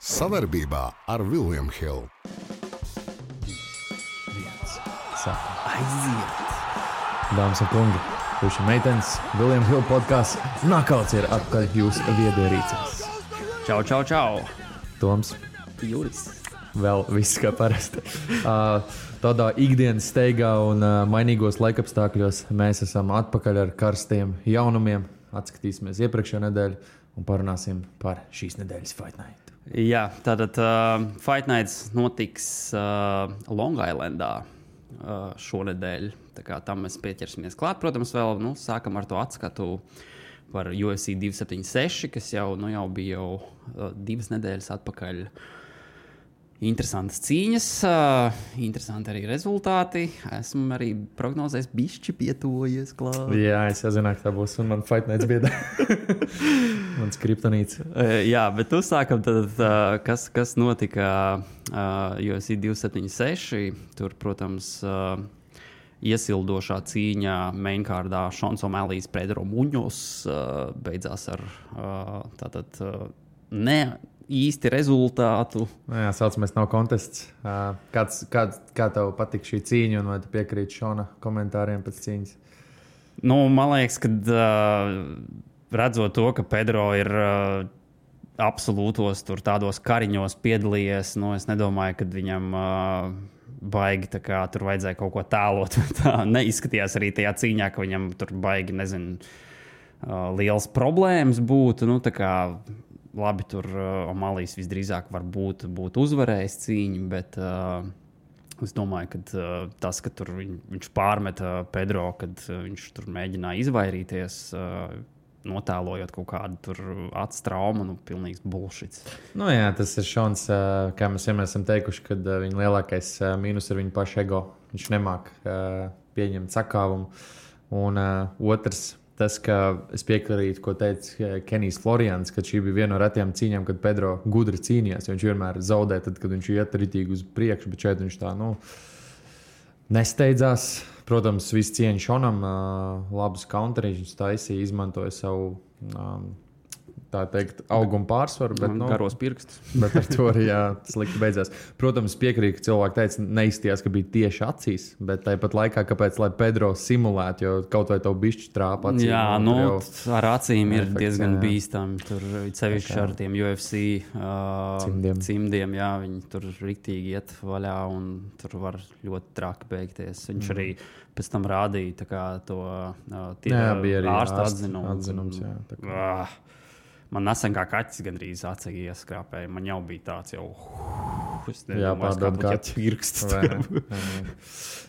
Sadarbībā ar William Hill. Aiziet! Dāmas un kungi, puiši meitenes, William Hill podcasts Knockouts ir atpakaļ jūsu viedierīcēs. Čau, čau, čau! Toms, Juris. vēl viss kā parasti. Tādā ikdienas steigā un mainīgos laikapstākļos mēs esam atpakaļ ar karstiem jaunumiem. Atskatīsimies iepriekšējo nedēļu un parunāsim par šīs nedēļas Fight Night. Jā, tātad Fight Nights notiks Long Islandā šonedēļ. Tā kā tam mēs pieķersimies klāt. Protams, vēl sākam ar to atskatu par UFC 276, kas jau bija 2 nedēļas atpakaļ. Interesantas cīņas, interesanti arī rezultāti. Esmu arī prognozējis bišķi pietuvojies klāt. Jā, es jau zināju, ka tā būs un man Fight Nights biedā. Mans kriptonīts. Jā, bet uzsākam tad, kas notika UFC 276. Tur, protams, iesildošā cīņa mainkārdā Šons O'Malley's Pedro Muņos beidzās ar ne īsti rezultātu. Jā, saucamais nav kontests. Kā tev patīk šī cīņa un vai tu piekrīti Šona komentāriem pēc cīņas? Man liekas, ka redzot to, ka Pedro ir absolūtos tādos kariņos piedalījies, es nedomāju, ka viņam baigi tur vajadzēja kaut ko tēlot. Tā neizskatījās arī tajā cīņā, ka viņam tur baigi, liels problēmas būtu. Labi, tur O'Malley's visdrīzāk varbūt būtu uzvarējis cīņu, bet es domāju, ka tas, ka tur viņš pārmeta Pedro, kad viņš tur mēģināja izvairīties, notēlojot kaut kādu tur acu traumu, pilnīgs bullshits. Jā, tas ir Šons, kā mēs vienmēr esam teikuši, kad viņa lielākais mīnus ir viņa paša ego. Viņš nemāk pieņemt sakāvumu. Un otrs, tas, ka es piekrītu, ko teica Kenijs Florians, ka šī bija viena no retajām cīņām, kad Pedro gudri cīnījās. Viņš vienmēr zaudē, tad, kad viņš iet ritīgi uz priekšu, bet šeit viņš tā, nesteidzās. Protams, viss cieņa Šonam, labus counterīšus viņš taisīja, izmantoja savu, tā teikt, augumu pārsvaru. Bet, garos pirkstus. Bet ar to arī slikti beidzās. Protams, piekrīt, ka cilvēki teica, neizstījās, ka bija tieši acīs, bet tāpat laikā, kāpēc, lai Pedro simulētu, jo kaut vai tev bišķi trāpa acīm. Jā, ar acīm ir diezgan bīstami. Tur sevišķi ar tiem UFC cimdiem, jā, viņi tur riktīgi iet vaļā un tur var ļoti traki beigties. Viņš arī pēc tam rādīja to ārsta atzinums. Man nesen kā kaķis gandrīz acī ieskrāpēja. Man jau bija tāds es nedomāju, kā pirksts.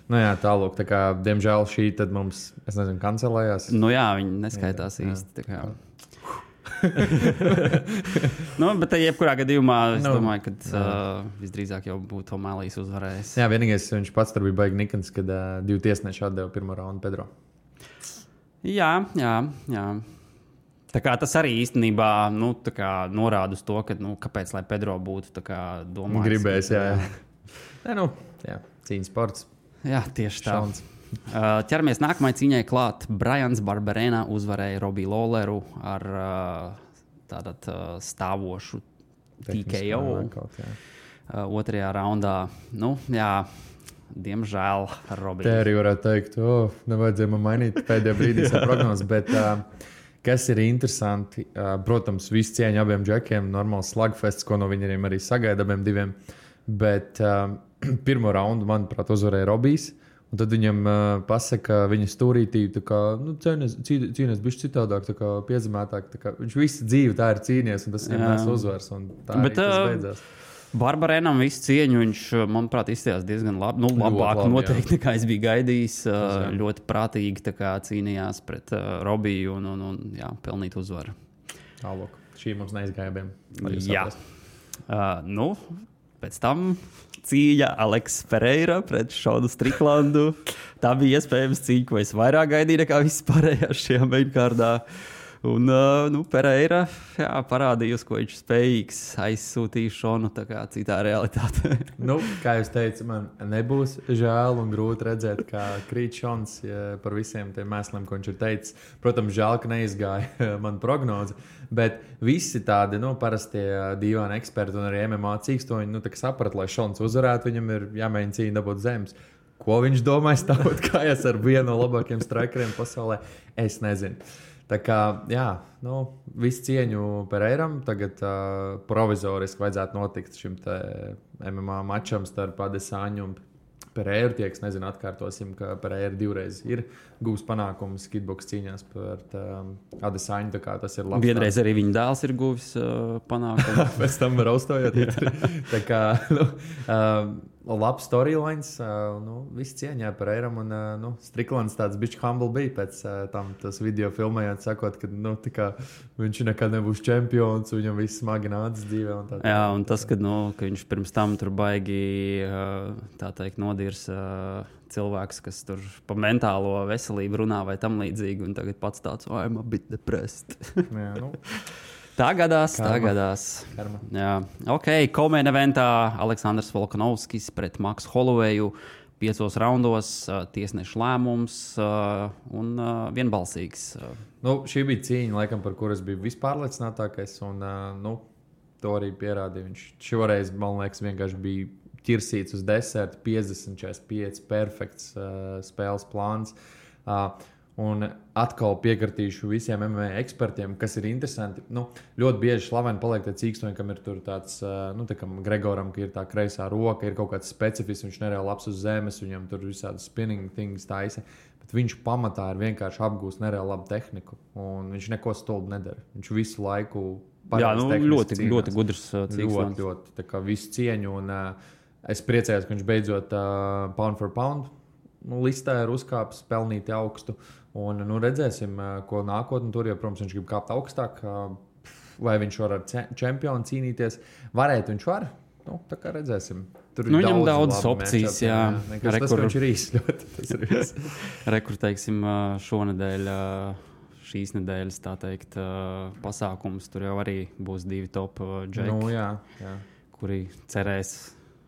Tālūk, tā kā, diemžēl šī tad mums, es nezinu, kancelējās. Jā, viņi neskaitās īsti. Tā kā. Bet jebkurā gadījumā es domāju, ka visdrīzāk jau būtu O'Malley's uzvarējis. Jā, vienīgais viņš pats tur bija baigi nikns, kad 2 tiesneši atdeva pirmo raundu Pedro. Jā. Tā kā tas arī īstenībā norāda uz to, ka, kāpēc lai Pedro būtu domājis. Gribējis, jā. Cīņas sports. Jā, tieši tā. Ķeramies nākamajai cīņai klāt. Brians Barberena uzvarēja Robbie Lawleru ar stāvošu TKO. Otrajā raundā. Diemžēl Robbie. Te arī varētu teikt, nevajadzēja man mainīt pēdējā brīdī savu prognozi, bet kas ir interesanti, protams, visu cieņu abiem džekiem, normāls slugfests, ko no viņiem arī sagaida abiem diviem, bet pirmo raundu, manuprāt, uzvarēja Robijs, un tad viņam pasaka viņa stūrītī, cīnies bišķi citādāk, piezemētāk, viņš visu dzīvi tā ir cīnies, un tas viņam nes uzvars, un tā arī tas beidzās. Barbarenam visu cieņu viņš, manuprāt, izstījās diezgan labi. Labāk noteikti, nekā es biju gaidījis. Ļoti prātīgi cīnījās pret Robiju un pelnīt uzvaru. Tālāk. Šī mums neizgāja abiem. Jā. Pēc tam cīņa Aleks Pereira pret Šonu Striklandu. Tā bija iespējams cīņa, ko es vairāk gaidīju nekā vispārējā šajā mainkārdā. Un Pereira parādījusi, ko viņš spējīgs, aizsūtīja Šonu tā kā citā realitātē. Kā jūs teicat, man nebūs žēl un grūti redzēt, kā krīt Šons par visiem tiem mēsliem, ko viņš ir teicis. Protams, žēl, ka neizgāja man prognoze, bet visi tādi parastie dīvaini eksperti un arī MMA cīkstoņi saprata, lai Šons uzvarētu, viņam ir jāmēģina cīņa dabūt zemes. Ko viņš domāja stāvot kājās ar vienu no labākajiem strikeriem pasaulē, es nezinu. Tā kā, visu cieņu Pereiram, tagad provizoriski vajadzētu notikt šim te MMA mačam starp Adesaņu un Pereiru. Tie, kas nezinu, atkārtosim, ka Pereira divreiz ir gūs panākumus kitboks cīņās par Adesaņu, tā kā tas ir labs. Vienreiz arī viņa dēls ir guvis panākumus. Pēc tam raustojot. Tā kā, labs storylines, viss cieņā Pereiram un Stricklands tāds bišķi humble bija pēc tam tas video filmējot, sakot, ka viņš nekad nebūs čempions, viņam viss smagi nācis dzīvē. Un tas, ka viņš pirms tam tur baigi, tā teikt, nodirs cilvēks, kas tur pa mentālo veselību runā vai tam līdzīgi, un tagad pats tāds, I'm a bit depressed. Tā gadās. Jā. Komēna eventā Aleksandrs Volkanovskis pret Maksu Holoveju 5 raundos, tiesneša lēmums un vienbalsīgs. Šī bija cīņa, laikam, par kuras bija vispārliecinātākais, un to arī pierādīja. Viņš šoreiz, man liekas, vienkārši bija ķirsīts uz desertu, 50-45, perfekts spēles plāns. Un atkal piekritīšu visiem MMA ekspertiem, kas ir interesanti. Ļoti bieži slaveni paliek tie cīkstoņi, kam ir tur tāds, tā kā Gregoram, ka ir tā kreisā roka, ir kaut kāds specifisks, viņš nereāli labs uz zemes, viņam tur visādi spinning things taisa. Bet viņš pamatā ir vienkārši apgūst nereāli labu tehniku, un viņš neko stulbu nedara. Viņš visu laiku ļoti gudrs cīkstoņs. Ļoti, tā kā visu cieņu, un es priecājos, ka viņš beidzot pound for pound listē ir uzkāpis pelnīti augstu. Un redzēsim, ko nākotnē tur, jo, protams, viņš grib kāpt augstāk. Vai viņš var ar čempionu cīnīties? Varētu viņš var. Tā kā redzēsim. Tur ir viņam daudz opcijas, jā. Tas, ka viņš ir īsts ļoti. Tas ir viss. Rekur, teiksim, šonedēļ, šīs nedēļas, tā teikt, pasākums. Tur jau arī būs 2 top džeki, kuri cerēs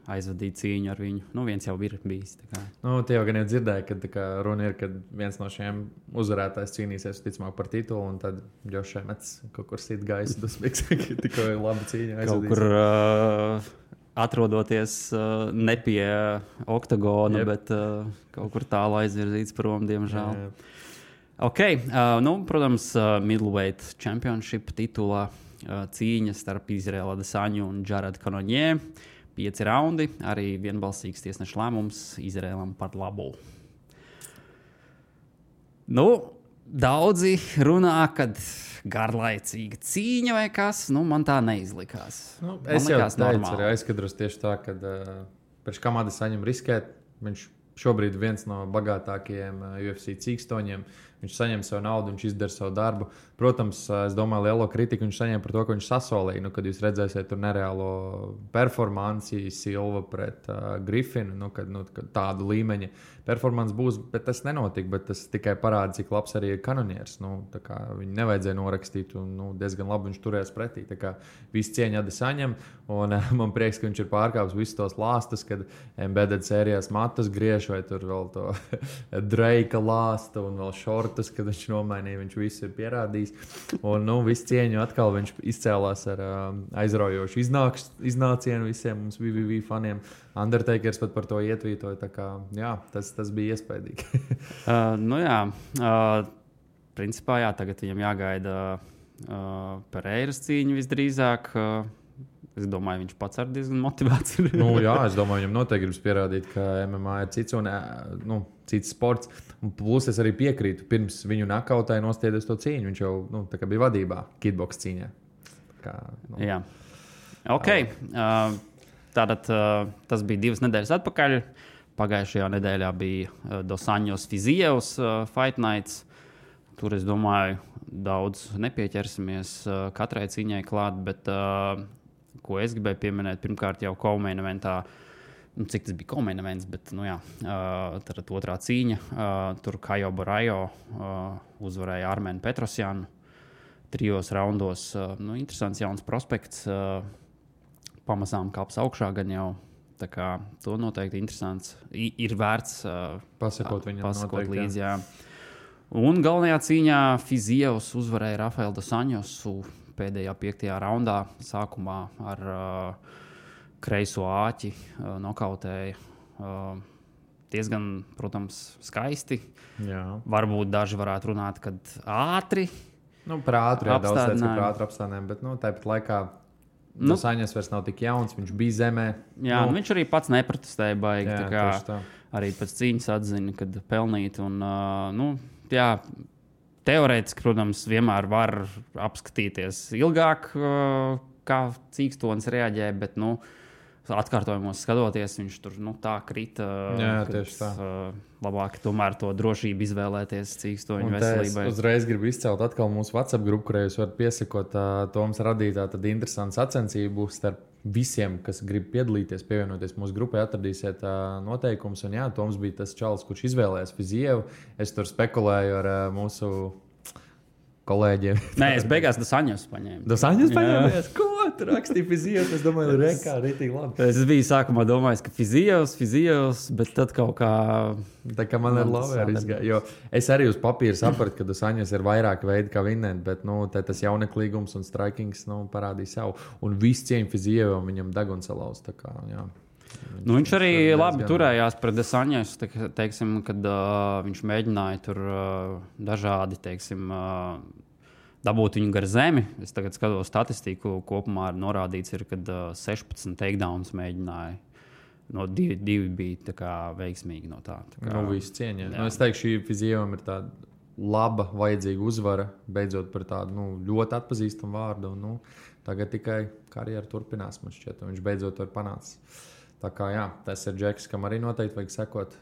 aizvadīt cīņu ar viņu. Viens jau ir bijis. Tie jau gan jau dzirdēja, ka runa ir, kad viens no šiem uzvarētājs cīnīsies ticamāk par titulu, un tad Džošs Emmets kaut kur sit gaisu dusmīgs, ka tikko labu cīņu aizvadīs. Kaut kur atrodoties ne pie oktagona, bet kaut kur tālu aizvirzīts prom, diemžēl. Protams, middleweight championship titulā cīņa starp Izraela Adesaņu un Jared Cannonier. 5 raundi, arī vienbalsīgs tiesneša lēmums Izraēlam par labu. Daudzi runā, kad garlaicīga cīņa vai kas, man tā neizlikās. Es jau teicu, arī aizskatros tieši tā, ka pēc kam Adesaņam riskēt, viņš šobrīd viens no bagātākajiem UFC cīkstoņiem. Viņš saņem savu naudu, viņš izdara savu darbu. Protams, es domāju, lielo kritiku viņš saņem par to, ka viņš sasolīja. Kad jūs redzēsiet tur nereālo performanci Silva pret Griffinu, kad tādu līmeņa performance būs, bet tas nenotika. Bet tas tikai parāda, cik labs arī ir Cannoniers. Viņu nevajadzēja norakstīt, un diezgan labi viņš turējās pretī. Viss cieņa Adesaņam, un man prieks, ka viņš ir pārkāpis visus tos lāstus, kad embedded sērijās matus griež, vai tur vēl to Drake lāstu un vēl šortus, kad viņš nomainīja, viņš visu ir pierādījis. Un visu cieņu atkal viņš izcēlās ar aizraujošu iznācienu visiem mums VVV faniem. Undertakers pat par to ietvītoja, tā kā, tas bija iespaidīgi. Principā, tagad viņam jāgaida Pereiras cīņa visdrīzāk. Es domāju, viņš pats ar diezgan motivēts ir. Es domāju, viņam noteikti gribas pierādīt, ka MMA ir cits un cits sports. Un plus es arī piekrītu, pirms viņu nakautai nostiedies to cīņu. Viņš jau bija vadībā kitboks cīņā. Jā. Tātad tas bija 2 nedēļas atpakaļ. Pagājušajā nedēļā bija Dos Anjos Fizievs Fight Nights. Tur, es domāju, daudz nepieķersimies katrai cīņai klāt, bet ko es gribēju pieminēt, pirmkārt jau Komēna eventā, cik tas bija Komēna events, bet, tad 2. cīņa, tur Kajo Barajo uzvarēja Armēnu Petrosjanu. trijos raundos. Interesants jauns prospekts. Pamazām kāps augšā gan jau. Tā kā to noteikti interesants. Ir vērts pasakot viņam noteikti, līdzi. Jā. Un galvenajā cīņā Fizievs uzvarēja Rafaelu dos Anjosu pēdējā 5. raundā. Sākumā ar kreiso āķi nokautēja. Diezgan, protams, skaisti. Jā. Varbūt daži varētu runāt, kad ātri. Par ātri, jā, daudz teica, ka par ātri apstādinājumu, bet tāpat laikā dos Anjos vairs nav tik jauns, viņš bija zemē. Jā, viņš arī pats neprotestēja baigi. Jā, tā. Arī pēc cīņas atzina, kad pelnīt. Un, jā, teorētiski, protams, vienmēr var apskatīties ilgāk, kā cīkstons reaģē, bet, atkārtojumos skatoties, viņš tur tā krita. Jā, tieši tā. Labāk tomēr to drošību izvēlēties cīkstoņu veselībai. Es uzreiz gribu izcelt atkal mūsu WhatsApp grupu, kurai jūs varat piesakot Toms radītā tad interesantu sacensību starp visiem, kas grib piedalīties, pievienoties mūsu grupai, atradīsiet noteikumus. Un jā, Toms bija tas čalis, kurš izvēlējās Fizievu. Es tur spekulēju ar mūsu kolēģiem. Nē, es beigās dos Anjos paņēmu. Dos Anjos paņēmies? Ko? Tur rakstīja Fizievs. Es domāju, rekā, rītīgi labi. Es biju sākumā domājis, ka Fizievs, bet tad kaut kā... Tā kā man ar Lavēru izgāja. Jo es arī uz papīra sapratu, ka dos Anjos ir vairāk veidi, kā vinnēt, bet, tas jauneklīgums un strikings, parādīja savu. Un viss cieņa Fizievam viņam deguns salauz, tā kā, jā. Viņš arī labi turējās pret dos Anjosu, teiksim, kad viņš mēģināja tur dažādi, teiksim, dabūt viņu gar zemi. Es tagad skatos statistiku, kopumā norādīts ir, kad 16 takedowns mēģināja. No 2 bija tā kā veiksmīgi no tā. Viss cieņa. Es teikšu, šī Fizievam ir tāda laba, vajadzīga uzvara, beidzot par tādu ļoti atpazīstamu vārdu. Un, tagad tikai karjera turpinās, man šķiet, un viņš beidzot to ir panācis. Tā kā jā, tas ir Džeks, kam arī noteikti vajag sekot.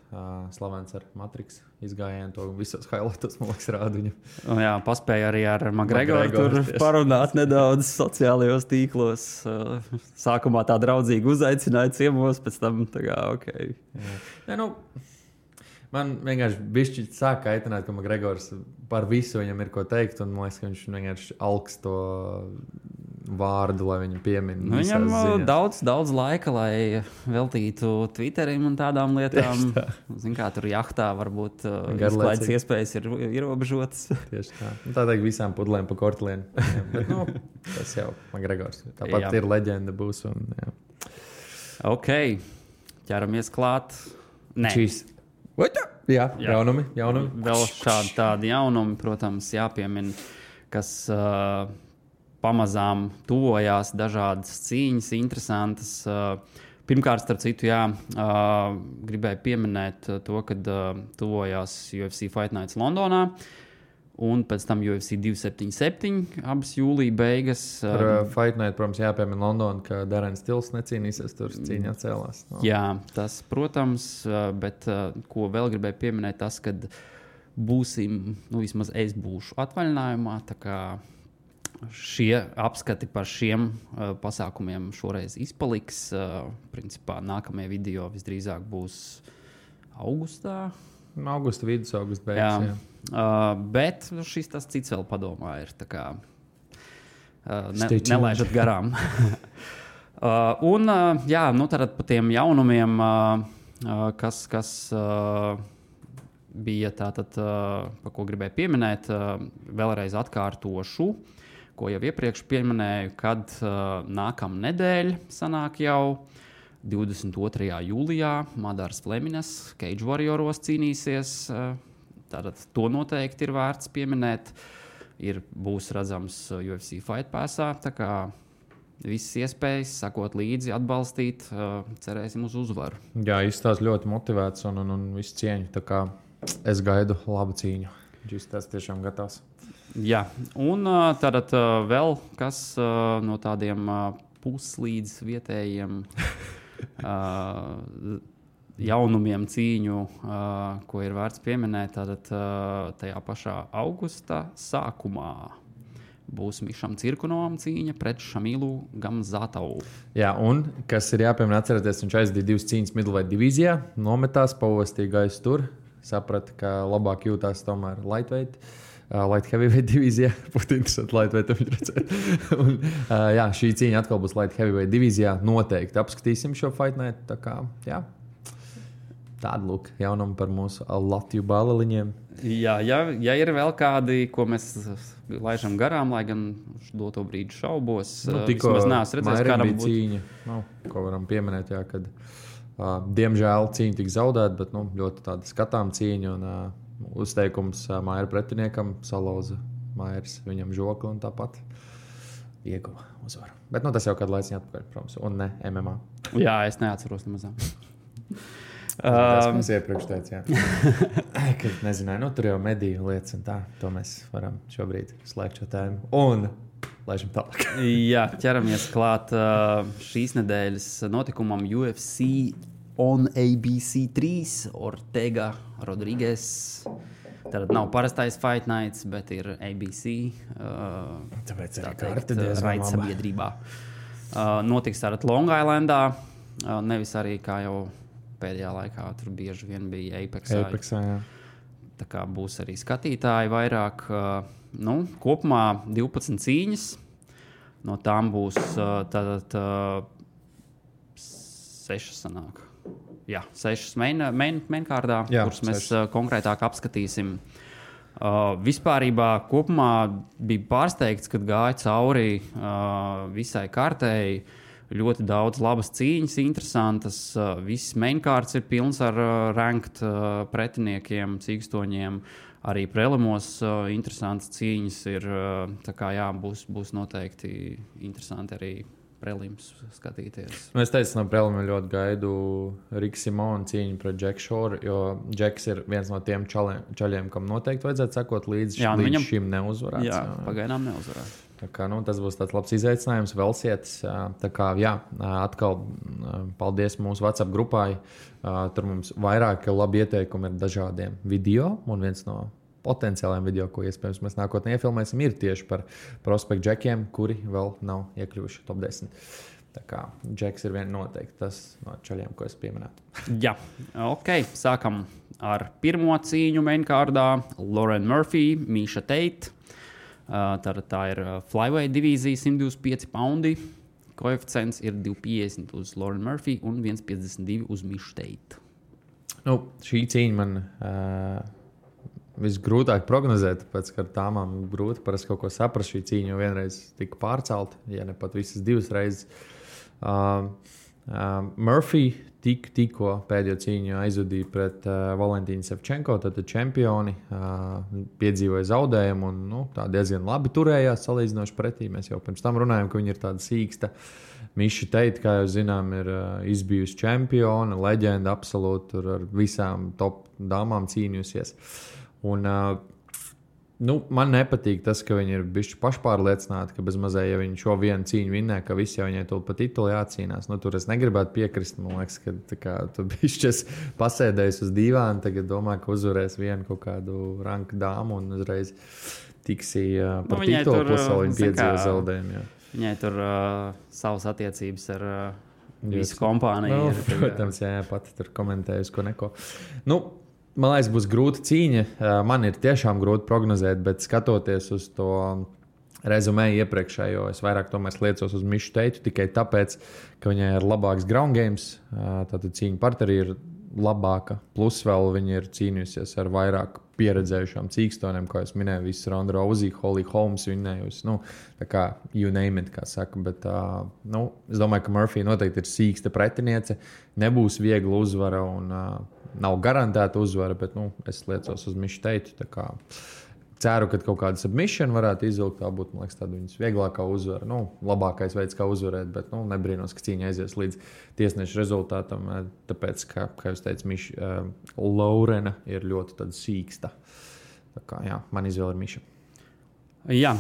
Slavens ar Matrix izgājienu, to visos highlightos, man liekas, rāda viņu. Jā, paspēja arī ar McGregoru tur parunāt nedaudz sociālajos tīklos. Sākumā tā draudzīgi uzaicināja ciemos, pēc tam tā kā ok. Jā, man vienkārši bišķi sāk kaitināt, ka McGregors par visu viņam ir ko teikt, un man liekas, ka viņš vienkārši alks to vārdu, lai viņu piemin. Viņam daudz laika, lai veltītu Twitterim un tādām lietām. Zin kā, tur jahtā varbūt izklaides iespējas ir ierobežotas. Tieši tā. Tā teikt visām pudlēm pa kortlienu. Bet, tas jau McGregors. Tāpat ir leģenda būs. Un, jā. Ok, ķeramies klāt. Nē. Čīs. Jā, jaunumi. Vēl šādi tādi jaunumi, protams, jāpiemin, kas pamazām tuvojās dažādas cīņas, interesantas. Pirmkārt, starp citu, gribēju pieminēt to, kad tuvojās UFC Fight Nights Londonā, un pēc tam UFC 277, abas jūlija beigas. Par Fight Night, protams, jāpiemina Londona, ka Darrens Tills necīnīsies, tur cīņā cēlās. Jā, tas, protams, bet ko vēl gribēju pieminēt, tas, kad būsim, vismaz es būšu atvaļinājumā, tā kā šie apskati par šiem pasākumiem šoreiz izpaliks. Principā nākamie video visdrīzāk būs augustā. Augusta vidus, augusta beigas. Jā. Bet šis tas cits vēl padomā ir. Tā kā nelaižat garām. Tad par tiem jaunumiem, kas bija tātad, par ko gribēju pieminēt, vēlreiz atkārtošu, ko jau iepriekš pieminēju, kad nākamā nedēļa sanāk jau 22. jūlijā Madars Flemines Cage Warrioros cīnīsies. Tātad to noteikti ir vērts pieminēt. Būs redzams UFC Fight Passā, tā kā visas iespējas, sakot līdzi, atbalstīt, cerēsim uz uzvaru. Jā, izstāsts ļoti motivēts un visu cieņu, tā kā es gaidu labu cīņu. Viņš tas tiešām gatavs. Jā, un tad vēl kas no tādiem puslīdz vietējiem jaunumiem cīņu, ko ir vērts pieminēt, tad tajā pašā augusta sākumā būs Mišam Cirkunovam cīņa pret Šamilu Gamzatovu. Jā, un kas ir jāpiemina, atcerieties, viņš aizdīja 2 cīņas middleweight divīzijā, nometās, pavostīja gaisu tur, saprata, ka labāk jūtās tomēr lightweight light heavyweight divīzijā. Būtu interesanti lightweight viņu redzēt. Un, jā, šī cīņa atkal būs light heavyweight divīzijā. Noteikti apskatīsim šo fight night. Tā kā, jā. Tāda lūk jaunuma par mūsu Latviju bāleliņiem. Jā, ja ir vēl kādi, ko mēs laižam garām, lai gan uz doto brīdi šaubos, vismaz neesmu redzējis, kādam būtu cīņa, ko varam pieminēt, jā, kad diemžēl cīņa tika zaudēta, bet ļoti tāda skatām cīņa un uzteikums Maira pretiniekam salauza Mairs viņam žokli un tāpat ieguva uzvaru. Bet tas jau kādu laiciņu atpakaļ, protams, un ne MMA. Jā, es neatceros nemazām. Tas mums iepriekš teica, ka nezināju, tur jau mediju lietas un tā. To mēs varam šobrīd slēgt šo tēmu. Un laižam tālāk. Jā, ķeramies klāt šīs nedēļas notikumam UFC on ABC3 Ortega Rodriguez. Tad nav parastais fight nights, bet ir ABC. Tāpēc arī karte diezgan laba. Sabiedrībā. Notiks tātad Long Islandā, nevis arī kā jau pēdējā laikā tur bieži vien bija Apexā, jā. Tā kā būs arī skatītāji vairāk. Kopumā 12 cīņas. No tām būs tātad 6 sanāk. Jā, 6 mainkārdā, kuras mēs konkrētāk apskatīsim. Vispārībā kopumā bija pārsteigts, kad gāja cauri visai kārtēji. Ļoti daudz labas cīņas, interesantas. Viss mainkārds ir pilns ar ranked pretiniekiem, cīkstoņiem. Arī prelimos interesantas cīņas ir. Tā kā jā, būs noteikti interesanti arī prelims skatīties. Es teicu, no prelima ļoti gaidu Rika Simona cīņu pret Džeku Šoru, jo Džeks ir viens no tiem čaļiem, kam noteikti vajadzētu sekot līdz šim neuzvarēts. Jā, pagaidām neuzvarēts. Tā kā, tas būs tāds labs izaicinājums, vēl sietas. Tā kā, jā, atkal paldies mūsu WhatsApp grupai. Tur mums vairāk labi ieteikumi ir dažādiem video, un viens no potenciāliem video, ko iespējams mēs nākotnē iefilmēsim, ir tieši par prospektu džekiem, kuri vēl nav iekļuvuši top 10. Tā kā džeks ir noteikti tas no čaļiem, ko es pieminētu. Jā, ok. Sākam ar pirmo cīņu mainkārdā. Lauren Murphy, Misha Tate. Tā ir flyweight divīzija, 125 poundi. Koeficients ir 2,50 uz Lauren Murphy un 1,52 uz Misha Tate. Šī cīņa man visgrūtāk prognozēt, tāpēc, ka ar tāmām grūti parasti kaut ko saprast. Šī cīņa jau vienreiz tika pārcelta, ja ne pat visas divas reizes. Murphy tikko pēdējo cīņu aizvadīja pret Valentīnu Sevčenko, tātad čempioni, piedzīvoja zaudējumu un tā diezgan labi turējās salīdzinoši pretī. Mēs jau pirms tam runājām, ka viņi ir tāda sīksta. Misha Tate, kā jau zinām, ir izbijusi čempiona, leģenda absolūti, tur ar visām top dāmām cīnījusies. Un, man nepatīk tas, ka viņi ir bijuši pašpārliecināti, ka bez mazai, ja viņi šo vienu cīņu vinnē, ka visi jau viņai tur pa titulu jācīnās. Tur es negribētu piekrist. Man liekas, ka tu bišķies pasēdējis uz dīvāna, tagad domā, ka uzvarēs vienu kaut kādu ranku dāmu un uzreiz tiksi par titulu, plus vēl viņi piedzīvo zaudējumu. Jā. Viņai tur savas attiecības ar visu kompāniju. Protams, jā, pati tur komentējusi ko neko. Man liekas, būs grūta cīņa. Man ir tiešām grūti prognozēt, bet skatoties uz to rezumē iepriekšējo, es vairāk tomēr liecos uz Mishu Tate tikai tāpēc, ka viņai ir labāks ground games. Tātad cīņa parterī ir labāka. Plus vēl viņa ir cīnījusies ar vairāk pieredzējušām cīkstoniem, kā es minēju, visu Ronda Rousey, Holly Holmes vinnējusi. Tā kā you name it, kā saka. Bet es domāju, ka Murphy noteikti ir sīksta pretiniece. Nebūs viegla uzvara un nav garantēta uzvara, bet es liecos uz Mishu Tate. Ceru, ka kaut kāda submission varētu izvilkt. Tā būtu, man liekas, tāda viņas vieglākā uzvara. Labākais veids, kā uzvarēt, bet nebrīnos, ka cīņa aizies līdz tiesneša rezultātam. Tāpēc, kā jūs teicat, Laurena ir ļoti tāda sīksta. Tā kā, jā, man izvēle ir Misha. Jā,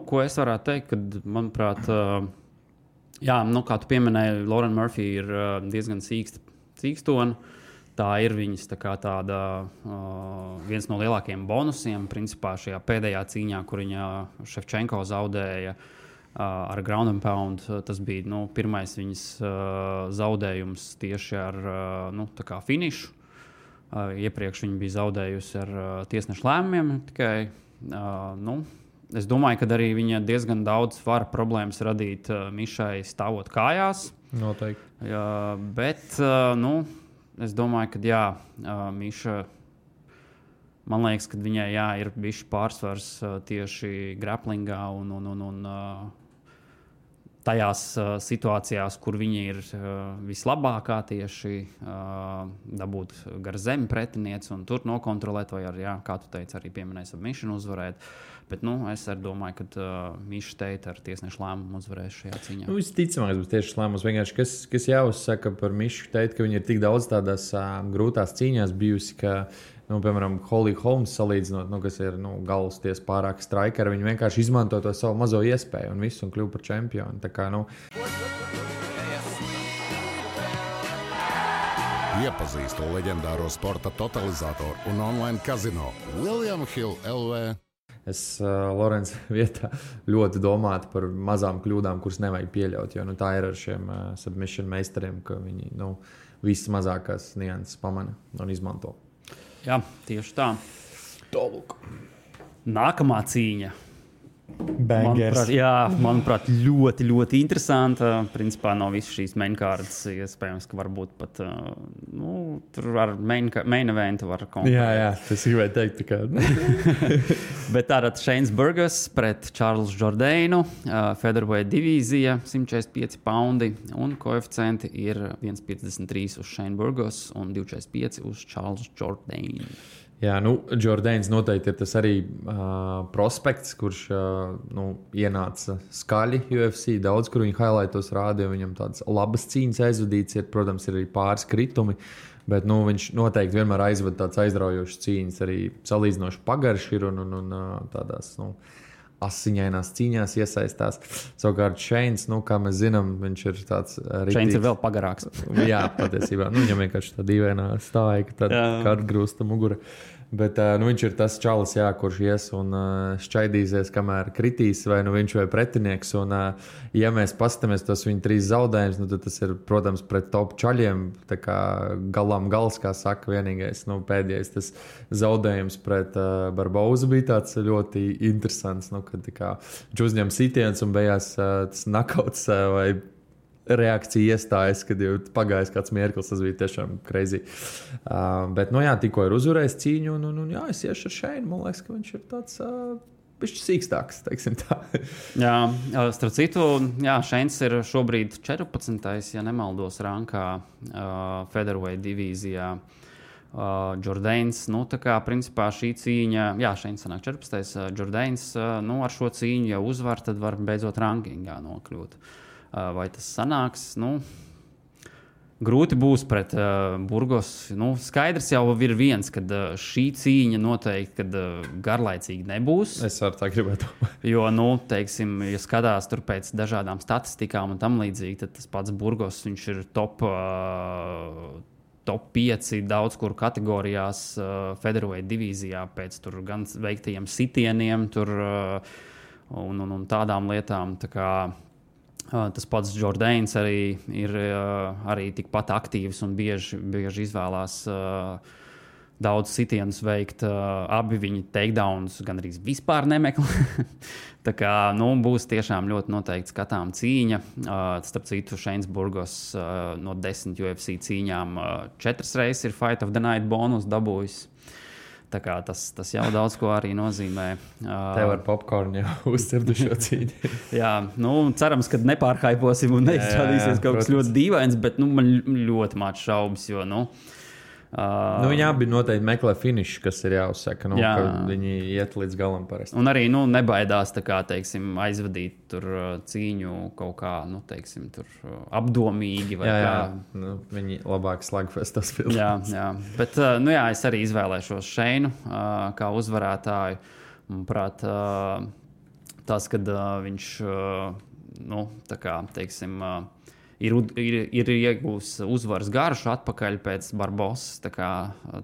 ko es varētu teikt, kad, manuprāt, jā, kā tu pieminēji, Lauren Murphy ir diezgan cīkstona. Tā ir viņas tāda viens no lielākajiem bonusiem. Principā šajā pēdējā cīņā, kur viņa Ševčenko zaudēja ar ground and pound, tas bija pirmais viņas zaudējums tieši ar finišu. Iepriekš viņa bija zaudējusi ar tiesnešu lēmumiem tikai Es domāju, ka arī viņa diezgan daudz var problēmas radīt Mišai stāvot kājās. Noteikti. Bet es domāju, ka Miša, man liekas, ka viņai ir bijis pārsvars tieši grapplingā un tajās situācijās, kur viņa ir vislabākā tieši dabūt gar zemi pretinieci un tur nokontrolēt, vai arī, kā tu teici, arī pieminēja submission uzvarēt. Bet es arī domāju, ka Miša Teita ar tiesnešu lēmumu uzvarēs šajā cīņā. Visticamāk, būs tieši lēmums. Vienkārši, kas jāuzsaka par Mišu Teitu, ka viņa ir tik daudz tādās grūtās cīņās bijusi, ka, piemēram, Holly Holmes salīdzinot, kas ir galvasties pārāk strikeri, viņi vienkārši izmanto to savu mazo iespēju un visu un kļuvu par čempionu. Tā kā, Iepazīstu leģendāro sporta totalizatoru un online kazino William Hill LV. Es Lorenza vietā ļoti domātu par mazām kļūdām, kuras nevajag pieļaut, jo tā ir ar šiem submission meistariem, ka viņi visas mazākās nianses pamana un izmanto. Jā, tieši tā. Tālūk. Nākamā cīņa. Bangers. Manuprāt, ļoti, ļoti interesanta. Principā no visas šīs mainkārtas iespējams, ka varbūt pat tur ar main eventu var konkurēt. Jā, tas gribēju teikt. Bet tātad Shanes Burgos pret Charles Jourdainu, featherweight divīzija, 145 poundi un koeficienti ir 1,53 uz Shane Burgos un 2,45 uz Charles Jourdainu. Jā, Jourdains noteikti ir tas arī prospekts, kurš ienāca skaļi UFC. Daudz, kur viņa highlightos rādīja, viņam tādas labas cīņas aizvadīts ir, protams, ir arī pāris kritumi, bet viņš noteikti vienmēr aizvada tāds aizraujošs cīņas, arī salīdzinoši pagarš ir un tādās, asiņainās cīņās iesaistās. Savukārt Shanes, kā mēs zinām, viņš ir tāds rītīgs. Shanes ir vēl pagarāks. Jā, patiesībā. Viņam vienkārši tā dīvainā stāja, ka tad atgrūsta mugura. Bet viņš ir tas čalis, kurš ies un šķaidīsies, kamēr kritīs vai viņš vai pretinieks. Un, ja mēs paskatāmies tos viņa 3 zaudējumus, tad tas ir, protams, pret top čaļiem. Tā kā galām gals, kā saka, vienīgais, pēdējais tas zaudējums pret Barbozu bija tāds ļoti interesants. Kad viņš uzņem sitiens un beigās tas nakauts vai reakcija iestājas, kad jau pagājis kāds mirklis, tas bija tiešām crazy. Bet, tikko ir uzvarējis cīņu, un es iešu ar Shainu. Man liekas, ka viņš ir tāds bišķi sīkstāks, teiksim tā. Jā, starp citu, Shains ir šobrīd 14. ja nemaldos rankā featherweight divīzijā. Jourdains, tā kā principā šī cīņa, Shains sanāk 14. Jourdains, ar šo cīņu jau uzvar, tad var beidzot rankingā nokļūt. Vai tas sanāks? Grūti būs pret Burgos. Skaidrs jau ir viens, ka šī cīņa noteikti garlaicīgi nebūs. Es arī tā gribētu. Jo, teiksim, ja skatās tur pēc dažādām statistikām un tam līdzīgi, tad tas pats Burgos, viņš ir top 5 daudz kur kategorijās featherweight divīzijā pēc tur gan veiktajiem sitieniem tur, un tādām lietām. Tā kā tas pats Jourdains arī ir arī tikpat aktīvs un bieži izvēlās daudz sitienus veikt. Abi viņi takedowns gan arī vispār nemeklē. Tā kā būs tiešām ļoti noteikti skatām cīņa. Starp citu, Shanes Burgos no 10 UFC cīņām 4 reizes ir Fight of the Night bonus dabūjis. Tā kā tas jau daudz ko arī nozīmē. Tev ar popkornu jau uzcirdu šo cīņu. Jā, cerams, ka nepārhaiposim un neizrādīsies kaut kas ļoti dīvains, bet man ļoti maz šaubas, jo, viņi abi noteikti meklē finišu, kas ir jāuzsaka, ka viņi iet līdz galam parasti. Un arī nebaidās teiksim, aizvadīt tur cīņu kaut kā tur apdomīgi. Vai viņi labāk slagfestos filmās. Jā. Bet es arī izvēlēšos Shainu kā uzvarētāju. Manuprāt, tas, kad viņš tā kā, teiksim, ir iegūs uzvaras garšu atpakaļ pēc Barbosas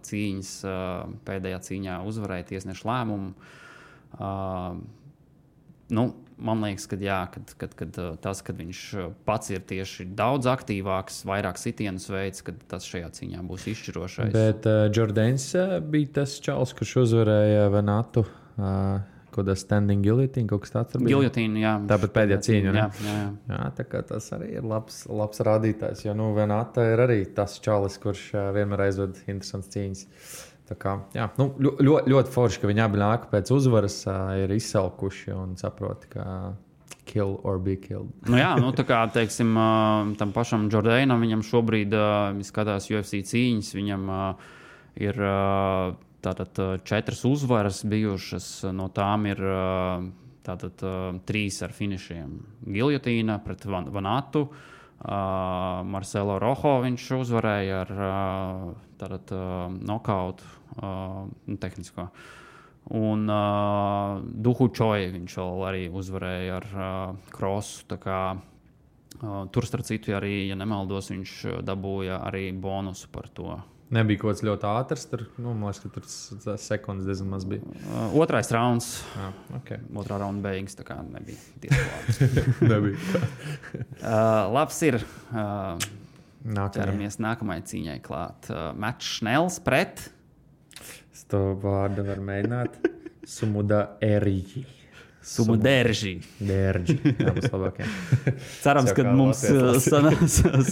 cīņas, pēdējā cīņā uzvarēja tiesnešu lēmumu. Man liekas, ka tas, kad viņš pats ir tieši daudz aktīvāks, vairāk sitienus veids, kad tas šajā cīņā būs izšķirošais. Bet Jourdains bija tas čalis, kurš uzvarēja Venatu Kāda standing guillotine, kaut kas tāds. Guillotine, jā. Tāpat pēdējā cīņa. Jā. Tā kā tas arī ir labs rādītājs. Jo, Venata ir arī tas čalis, kurš vienmēr aizved interesants cīņas. Tā kā, jā, ļoti forši, ka viņi abi nāk pēc uzvaras, ir izsalkuši un saproti, ka kill or be killed. Tā kā, teiksim, tam pašam Jordainam, viņam šobrīd skatās UFC cīņas, viņam ir... Tātad 4 uzvaras bijušas, no tām ir 3 ar finišiem. Giljotīna pret Vanatu, Marcelo Rojo viņš uzvarēja ar nokautu tehnisko. Un Duhu Čoju viņš vēl arī uzvarēja ar krosu. Tā kā, tur starp citu arī, ja nemaldos, viņš dabūja arī bonusu par to. Nebija kaut kas ļoti ātrs, man liekas, ka tur sekundes diezgan maz bija. Otrais rauns. Okay. Otrā raunda beigas, tā kā nebija tiesklāts. Nebija. Labs ir. Ķeramies nākamajai cīņai klāt. Mats Šnels pret. Es to vārdu var mēģināt. Sumuderži. Sumuderži. Derži. Tā būs labākie. Cerams, ka mums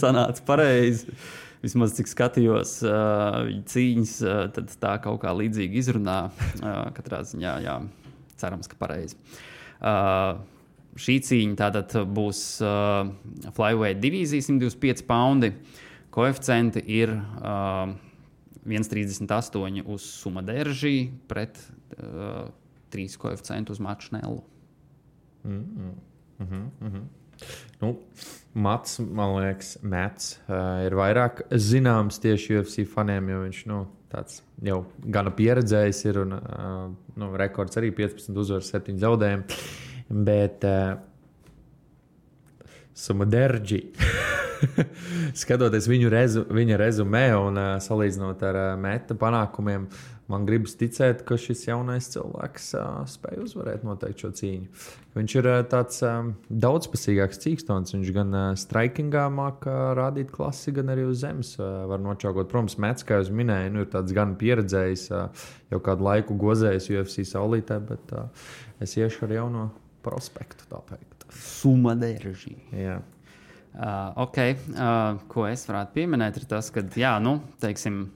sanāca pareizi. Vismaz cik skatījos cīņas, tad tā kaut kā līdzīgi izrunā. Katrā ziņā, jā, cerams, ka pareizi. Šī cīņa tātad būs flyweight divīzija, 125 paundi. Koeficienti ir 1,38 uz Sumuderži pret 3 koeficientu uz Matu Šnelu. Mats, man liekas, ir vairāk zināms tieši UFC faniem, jo viņš tāds jau gana pieredzējis ir un rekords arī 15 uzvaras, 7 zaudējumi. Bet Sumuderži, skatoties viņa rezumē un salīdzinot ar Meta panākumiem, man gribas ticēt, ka šis jaunais cilvēks spēj uzvarēt noteikti šo cīņu. Viņš ir tāds daudzpusīgāks cīkstons. Viņš gan strikingā māca rādīt klasi, gan arī uz zemes var nočaukot. Protams, Mets, kā jūs minēju, ir tāds gan pieredzējis, jau kādu laiku gozējis UFC saulītē, bet es iešu ar jauno prospektu, tā teikt. Sumuderži. Jā. Ko es varētu pieminēt, ir tas, ka, teiksim,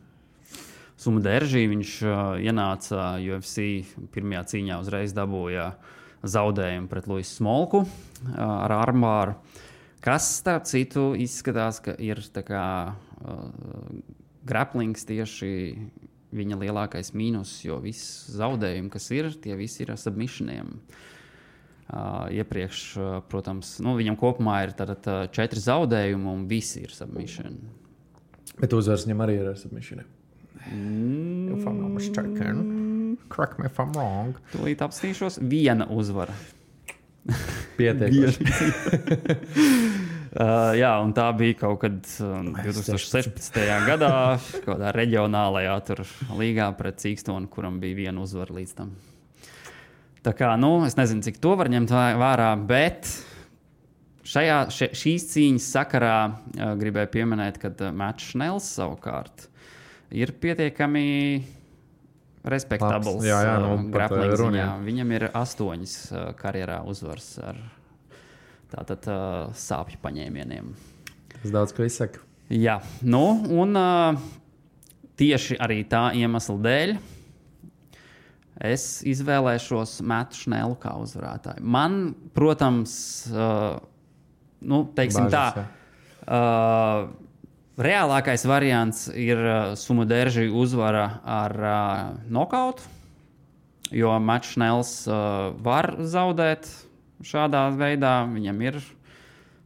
Sumuderži viņš ienāca UFC pirmajā cīņā, uzreiz dabūja zaudējumu pret Luisu Smolku ar armbāru, kas, starp citu, izskatās, ka ir tā kā grapplings tieši viņa lielākais mīnus, jo viss zaudējumi, kas ir, tie visi ir ar submissioniem. Iepriekš, protams, viņam kopumā ir 4 zaudējumi un visi ir submission. Bet uzvars viņam arī ir ar submissioniem. If I'm not mistaken, correct me if I'm wrong. Tūlīt apstīšos, viena uzvara. Pietiekoši. Jā, un tā bija kaut kad 2016. gadā, kādā reģionālajā līgā pret Cīkstonu, kuram bija viena uzvara līdz tam. Tā kā, es nezinu, cik to var ņemt vērā, bet šīs cīņas sakarā gribēju pieminēt, ka Mats Šnels savukārt ir pietiekami respektabls grappling ziņā. Viņam ir 8 karjerā uzvars ar tātad sāpju paņēmieniem. Tas daudz ko izsaka. Jā, un tieši arī tā iemesla dēļ es izvēlēšos Matu Šnelu kā uzvarētāju. Man, protams, teiksim Bāžas, tā, reālākais variants ir Sumuderži uzvara ar nokautu, jo Mats Šnels var zaudēt šādā veidā. Viņam ir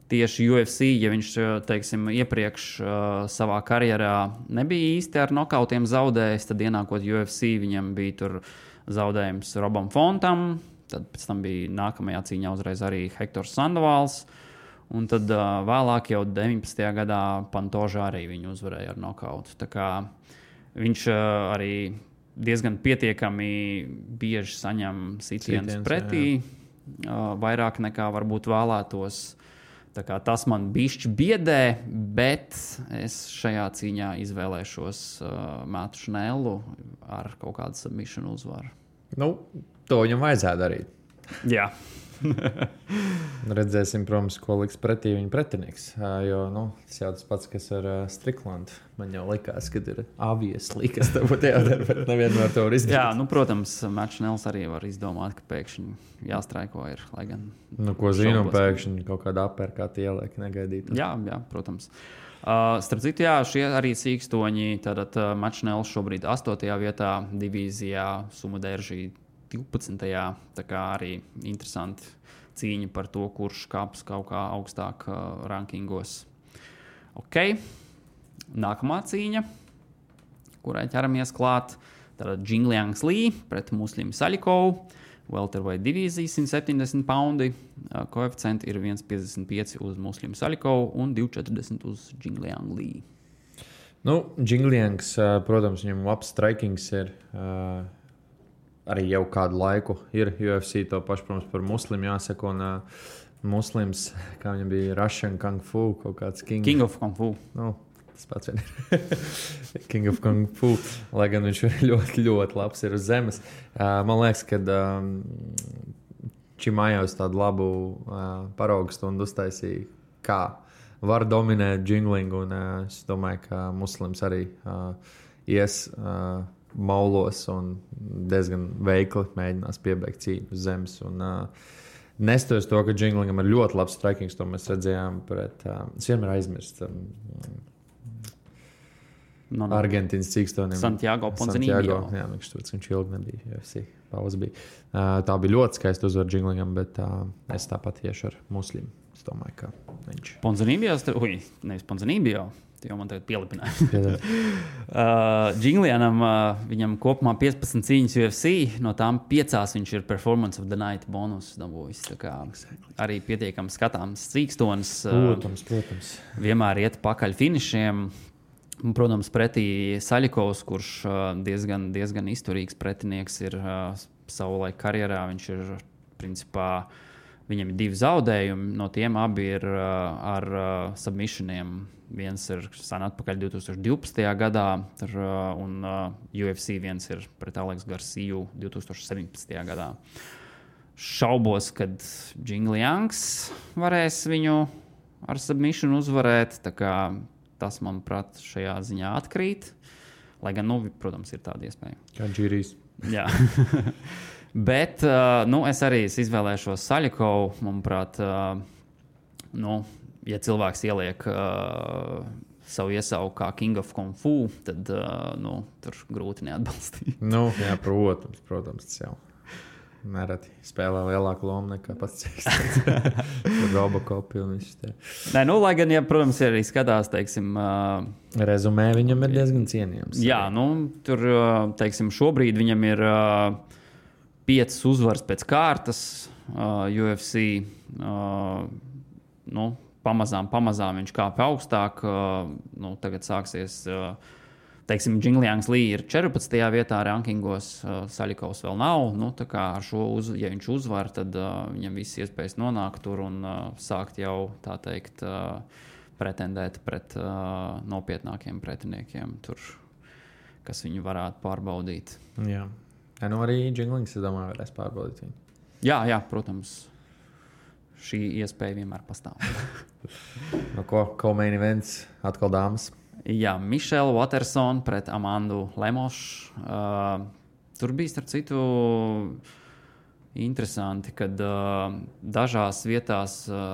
tieši UFC, ja viņš, teiksim, iepriekš savā karjerā nebija īsti ar nokautiem zaudējis, tad ienākot UFC viņam bija tur zaudējums Robam Fontam, tad pēc tam bija nākamajā cīņā uzreiz arī Hektors Sandovals. Un tad vēlāk jau 19. gadā Pantožā arī viņu uzvarēja ar nokautu. Tā kā viņš arī diezgan pietiekami bieži saņem sitienus pretī, vairāk nekā varbūt vēlētos. Tā kā tas man bišķi biedē, bet es šajā cīņā izvēlēšos Matu Šnelu ar kaut kādu submission uzvaru. To viņam vajadzētu darīt. Jā. Redzēsim, protams, ko liks pretī viņa pretinieks. Jo tas jau tas pats, kas ar Stricklandu. Man jau likās, ka ir obviously, kas tev būtu jādara, bet nevienmēr to var izdarīt. Jā, protams, Mačnels arī var izdomāt, ka pēkšņi jāstraiko ir. Lai gan ko zinu, pēkšņi kaut kāda aperkāta ieliek negaidīt. Jā, protams. Starp citu, šie arī sīkstoņi. Tātad Mačnels šobrīd 8. vietā divīzijā, Sumuderžī 12. Tā kā arī interesanti cīņa par to, kurš kāps kaut kā augstāk rankingos. Ok, nākamā cīņa, kurai ķeramies klāt. Tātad Jingliangs Li pret Muslim Salikovu. Welterweight divīzija 170 poundi. Koeficienti ir 1,55 uz Muslim Salikovu un 2,40 uz Jingliang Li. Jingliangs, protams, viņam labs strikings ir. Arī jau kādu laiku ir UFC, to pašu, protams, par Muslimu jāsaka. Un Muslims, kā viņam bija Russian Kung Fu, kaut kāds King of Kung Fu. Tas pats vien ir. King of Kung Fu. Lai gan viņš ļoti, ļoti labs ir uz zemes. Man liekas, ka Čimājos tādu labu paraugu stundu uztaisīja, kā var dominēt jinglingu. Un es domāju, ka Muslims arī ies maulos un diezgan veikli mēģinās piebeigt cīņu uz zemes. Nestoties to, ka jinglingam ir ļoti labs strikings, to mēs redzējām pret. Es vienmēr aizmirstu Argentīnas cīkstoni. Santiago Ponzinibbio. Jā, viņš ilgi nebija UFC. Pauze bija. Tā bija ļoti skaista uzvara jinglingam, bet es tāpat iešu ar Muslimu. Es domāju, ka viņš. Ponzinibbio, nevis Ponzinibbio. Jau man tagad pielipināja. Jinglianam viņam kopumā 15 cīņas UFC, no tām 5 viņš ir Performance of the Night bonus dabūjis. Arī pietiekami skatāms cīkstonis. Protams. Vienmēr iet pakaļ finišiem. Protams, pretī Salikovs, kurš diezgan izturīgs pretinieks ir savulaik karjerā. Viņš ir principā. Viņam ir 2 zaudējumi, no tiem abi ir ar submissioniem. Viens ir sen atpakaļ 2012. gadā, un UFC viens ir pret Aleksu Garciju 2017. gadā. Šaubos, kad Jingliangs varēs viņu ar submission uzvarēt. Tā kā tas, manuprāt, šajā ziņā atkrīt. Lai gan, protams, ir tāda iespēja. Kā Džīrijs. Jā. Bet es arī izvēlēšos Salikovu. Manuprāt, ja cilvēks ieliek savu iesauku kā King of Kung Fu, tad tur grūti neatbalstīt. Jā, protams, tas jau nereti spēlē lielāku lomu nekā pats cīkstons. Robocopi un viss tie. Lai gan, protams, arī skatās, teiksim... Rezumē viņam ir diezgan cienījams. Jā, tur, teiksim, šobrīd viņam ir 5 uzvaras pēc kārtas UFC. Pamazām viņš kāpj augstāk. Tagad sāksies... Teiksim, Jingliangs Li ir 14. vietā rankingos, Salikovs vēl nav. Tā kā ar šo, ja viņš uzvar, tad viņam viss iespējas nonākt tur un sākt jau, tā teikt, pretendēt pret nopietnākiem pretiniekiem, tur, kas viņu varētu pārbaudīt. Jā. Arī Jinglings, es domāju, varēs pārbaudīt viņu. Jā, protams. Šī iespēja vienmēr pastāv. Ko main events? Atkal dāmas. Jā, Michelle Watersone pret Amandu Lemošu. Tur bija, starp citu, interesanti, kad dažās vietās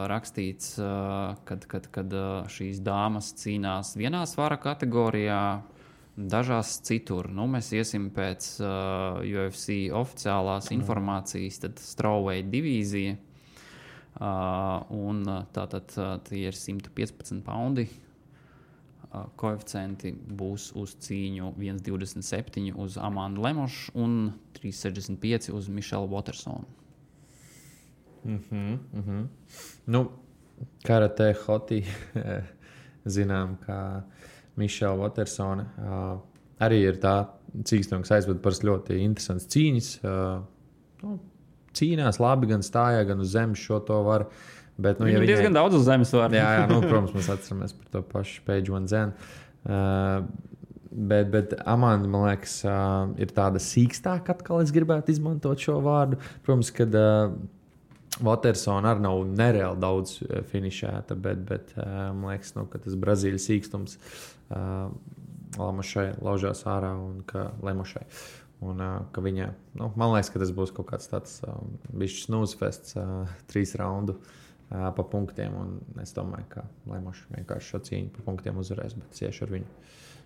rakstīts, kad šīs dāmas cīnās vienā svara kategorijā, dažās citur. Mēs iesim pēc UFC oficiālās informācijas, tad strawweight divīzija. Un tātad tie ir 115 poundi. Koeficienti būs uz cīņu 1,27 uz Amandu Lemošu un 3,65 uz Michelle Watersone. Karate hoti zinām, ka Michelle Watersone arī ir tā cīkstone, kas aizved par ļoti interesants cīņas. Cīnās labi, gan stājā, gan uz zemes šo to var. Bet, Viņam ja diezgan daudz uz zemes var. Jā, protams, mēs atceramies par to pašu Paige Van Zenu. Bet Amanda, man liekas, ir tāda sīkstāka, atkal es gribētu izmantot šo vārdu. Protams, kad Watersona arī nav nereāli daudz finišēta, bet man liekas, ka tas Brazīļu sīkstums Lamošai laužās ārā un ka Lemošai. Un ka viņa, man liekas, ka tas būs kaut kāds tāds bišķis snūzfests 3 raundu pa punktiem. Un es domāju, ka Lemoša vienkārši šo cīņu pa punktiem uzvarēs, bet es iešu ar viņu.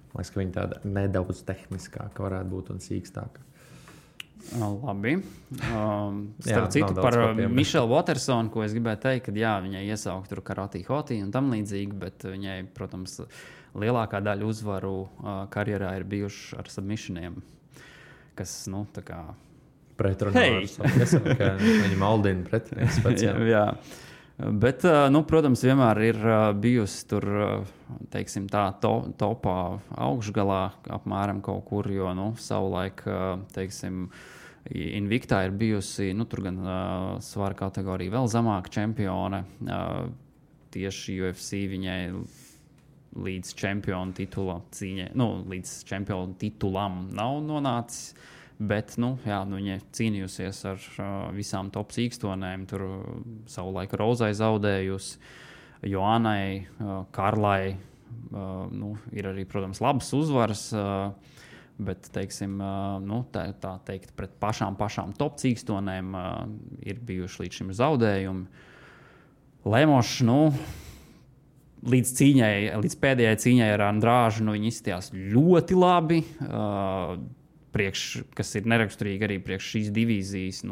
Man liekas, ka viņa tāda nedaudz tehniskāka varētu būt un sīkstāka. Labi. Starp citu par Mišelu Watersonu, ko es gribēju teikt, ka jā, viņai iesaukt tur Karate Hoti un tam līdzīgi, bet viņai, protams, lielākā daļa uzvaru karjerā ir bijuši ar submissioniem, kas, tā kā... Pretrunā ar savu, ka viņi maldina pretinieks speciāli. Jā. Bet, protams, vienmēr ir bijusi tur, teiksim, tā topā augšgalā apmēram kaut kur, jo, savulaik, teiksim, Invictā ir bijusi, tur gan svara kategorija vēl zemāka čempione. Tieši UFC viņai līdz čempionu titula cīņai, līdz čempionu titulam nav nonācis. Bet, viņa cīnījusies ar visām top sīkstonēm. Tur savulaik Rozai zaudējusi, Joannai, Karlai. Ir arī, protams, labas uzvaras, bet, teiksim, tā teikt, pret pašām top sīkstonēm ir bijuši līdz šim zaudējumi. Lemošs, līdz pēdējai cīņai ar Andrāžu, viņi izskatījās ļoti labi. Kas ir neraksturīgi arī priekš šīs divīzijas,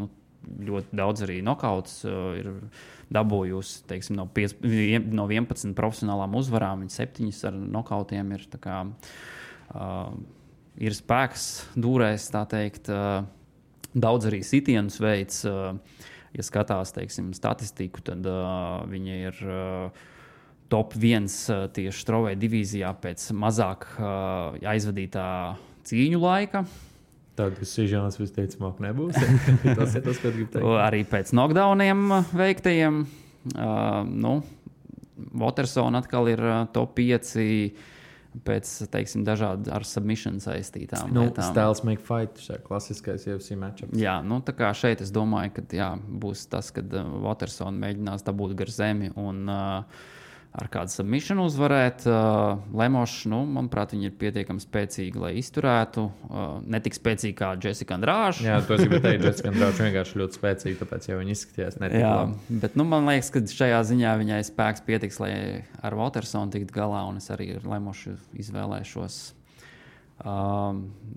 ļoti daudz arī nokauts ir dabūjusi, teiksim, no 11 profesionālām uzvarām, viņa 7 ar nokautiem ir tā kā ir spēks dūrēs, tā teikt, daudz arī sitienus veids, ja skatās, teiksim, statistiku, tad viņa ir top 1 tieši strawweight divīzijā pēc mazāk aizvadītā cīņu laika. Tādas sižānas visticamāk nebūs. Tas ir tas, ko gribu teikt. Arī pēc knockdowniem veiktajiem. Watersona atkal ir top 5 pēc, teiksim, dažādi ar submission saistītām lietām. Styles make fight, šā klasiskais UFC matchups. Jā, tā kā šeit es domāju, ka būs tas, kad Watersona mēģinās dabūt gar zemi un ar kādu submission uzvarēt. Lemošs, manuprāt, viņa ir pietiekami spēcīga, lai izturētu. Ne tik spēcīga kā Jessica Andrāža. Jā, to es gribēju teikt, Jessica Andrāža vienkārši ļoti spēcīga, tāpēc jau viņa izskatījās netik labi. Bet, man liekas, ka šajā ziņā viņai spēks pietiks, lai ar Watersonu tikt galā, un es arī ar Lemošu izvēlēšos.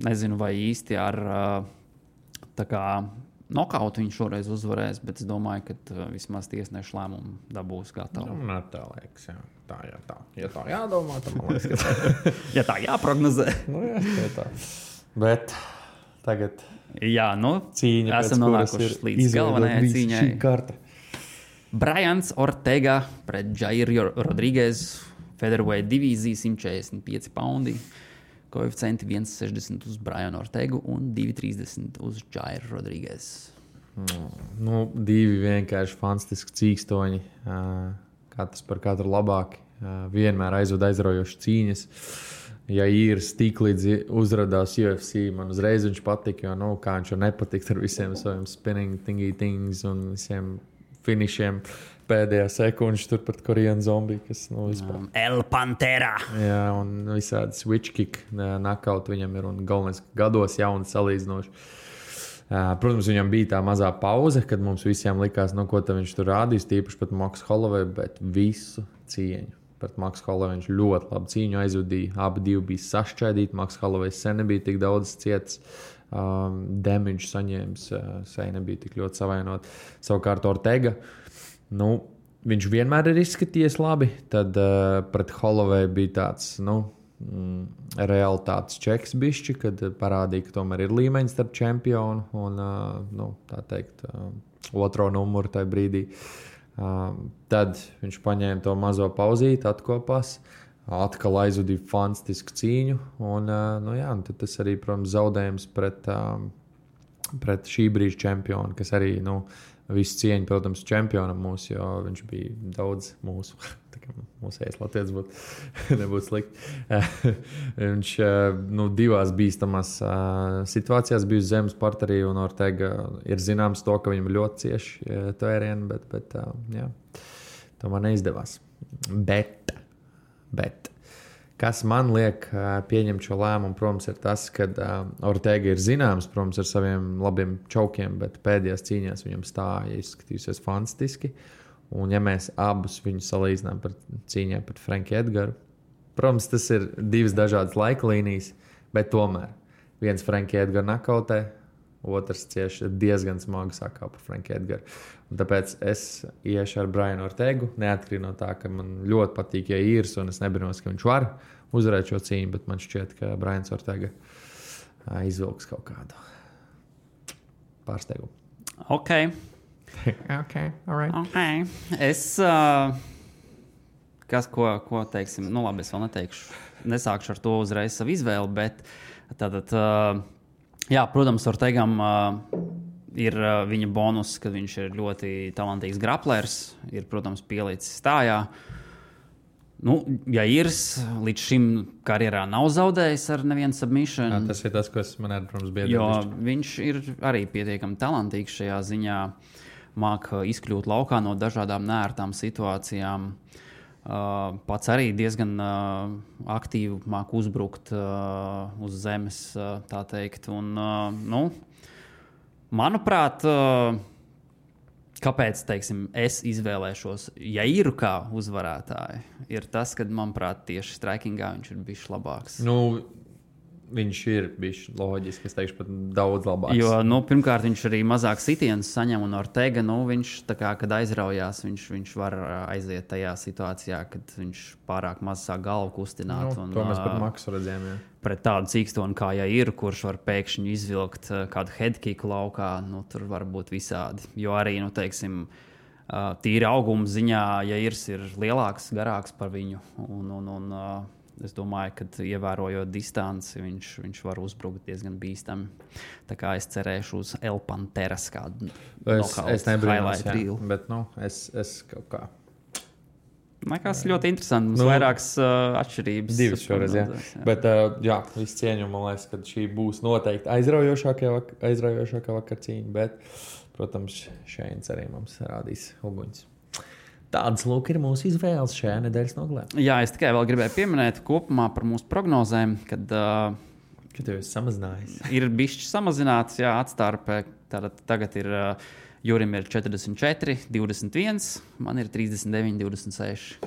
Nezinu, vai īsti ar tā kā nokautu viņš šoreiz uzvarēs, bet es domāju, ka vismaz tiesnešu lēmumu dabūs gatavu. Tā liekas, jā. Tā. Ja tā jādomā, tad man liekas, ka ja tā jāprognozē. Tā. Bet tagad cīņa, esam nonākuši līdz galvenajai cīņai. Šī karta. Brians Ortega pret Jair Rodriguez, featherweight divīzija, 145 paundi. Koeficienti 1,60 uz Brianu Ortegu un 2,30 uz Jair Rodriguez. Divi vienkārši fantastiski cīkstoņi. Katrs par katru labāki. Vienmēr aizraujoši cīņas. Ja īrs tik līdz uzradās UFC, man uzreiz viņš patika, jo, kā viņš jau nepatikt ar visiem saviem spinning things un visiem finišiem. Pēdējā sekundža tur pret Koreanu zombiju, kas vispār. El Pantera! Jā, un visādi switch kick knockout viņam ir, un galvenais gados jauns salīdzinoši. Protams, viņam bija tā mazā pauze, kad mums visiem likās, ko viņš tur rādīs, tīpaši pat Max Holloway, bet visu cieņu. Pret Max Holloway viņš ļoti labi cīņu aizvadīja, abi divi bija sašķaidīti, Max Holloway sen nebija tik daudz cietis, damage saņēmis, sen nebija tik ļoti savainot. Savukārt Ortega, viņš vienmēr ir izskatījies labi. Tad pret Holloway bija tāds realitātes čeks bišķi, kad parādīja, ka tomēr ir līmeņs starp čempionu un tā teikt otro numuru tajā brīdī. Tad viņš paņēma to mazo pauzīti, atkopās, atkal aizvadīja fantastisku cīņu un tad tas arī, protams, zaudējums pret šī brīža čempionu, kas arī Visu cieņu, protams, čempionam mūsu, jo viņš bija daudz mūsu. Mūsējais latviečs nebūtu slikti. Viņš divās bīstamās situācijās bija uz zemes parterī, un Ortega ir zināms to, ka viņam ļoti cieši tvērieni, bet jā, tomēr neizdevās. Bet kas man liek pieņemt šo lēmumu, protams, ir tas, ka Ortega ir zināms, protams, ar saviem labiem čaukiem, bet pēdējās cīņās viņam stāja izskatījusies fantastiski. Un ja mēs abus viņus salīdzinām par cīņā pret Franku Edgaru, protams, tas ir divas dažādas laika līnijas, bet tomēr viens Franku Edgaru nakautē, otrs cieši diezgan smagi sakā par Franku Edgaru. Un tāpēc es iešu ar Brianu Ortegu, neatkarīgi no tā, ka man ļoti patīk, ja īrs, un es nebrinos, ka viņš var uzvarēt šo cīņu, bet man šķiet, ka Brians Ortega izvilks kaut kādu pārsteigumu. Okay, all right. Okay. Es, ko teiksim, nu labi, es vēl neteikšu, nesākšu ar to uzreiz savu izvēli, bet tātad, jā, protams, Ortegam ir viņa bonus, ka viņš ir ļoti talantīgs graplers, ir, protams, pielicis stājā. Nu, ja Irs līdz šim karjerā nav zaudējis ar nevienu submission. Jā, tas ir tas, kas man ir, protams, biedri. Jo viņš ir arī pietiekami talantīgs šajā ziņā, māk izkļūt laukā no dažādām neērtām situācijām. Pats arī diezgan aktīvi māk uzbrukt uz zemes, tā teikt. Un, nu, manuprāt, kāpēc, teiksim, es izvēlēšos Jairu kā uzvarētāju, ir tas, ka, manuprāt, tieši strikingā viņš ir bijis labāks. Nu, viņš ir bijis loģiski, es teikšu, pat daudz labāks. Jo, nu, pirmkārt, viņš arī mazāk sitienus saņem, un Ortega, nu, viņš, tā kā, kad aizraujās, viņš var aiziet tajā situācijā, kad viņš pārāk maz sāk galvu kustināt. Nu, un, to mēs pat maksu redzējām, jā. Pret tādu cīkstonu kā Jair, kurš var pēkšņi izvilkt kādu headkicku laukā, nu, tur var būt visādi. Jo arī, nu, teiksim, tīri auguma ziņā Jairs ir lielāks, garāks par viņu, un es domāju, ka ievērojot distanci, viņš var uzbrukt diezgan bīstami. Tā kā es cerēšu uz El Panteras kādu Es nebrīnos, jā, reel. bet, nu, es kaut kā. Liekas ļoti interesanti. Mums vairākas atšķirības. Divas šoreiz, jā. Bet, jā, visu cieņu, man liekas, ka šī būs noteikti aizraujošākā vakar cīņa, bet, protams, Šeins arī mums rādīs uguņus. Tādas lūk ir mūsu izvēles šajā nedēļas nogalē. Jā, es tikai vēl gribēju pieminēt kopumā par mūsu prognozēm, kad tev ir samazinājies. Ir bišķi samazināts, jā, atstārpē. Tātad tagad ir Jurim ir 44, 21, man ir 39, 26.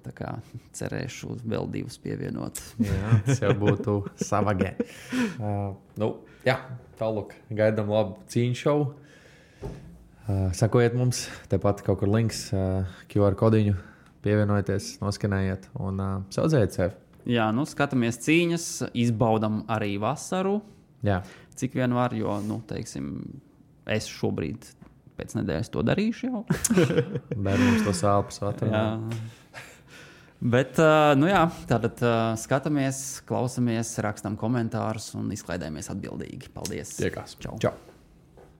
Tā kā cerēšu vēl divus pievienot. Jā, tas jau būtu savagē. Nu, jā, tālūk, gaidām labu cīņu šovu. Sakojiet mums, tepat kaut kur links, QR kodiņu, pievienojieties, noskanējiet un saudzējiet sevi. Jā, nu skatāmies cīņas, izbaudam arī vasaru, Jā. Cik vien var, jo, nu, teiksim, es šobrīd pēc nedēļas to darīšu jau. Bērnums to sāpes atrunā. Bet, nu jā, tātad skatāmies, klausamies, rakstam komentārus un izklaidējamies atbildīgi. Paldies! Tiekās. Čau! Čau.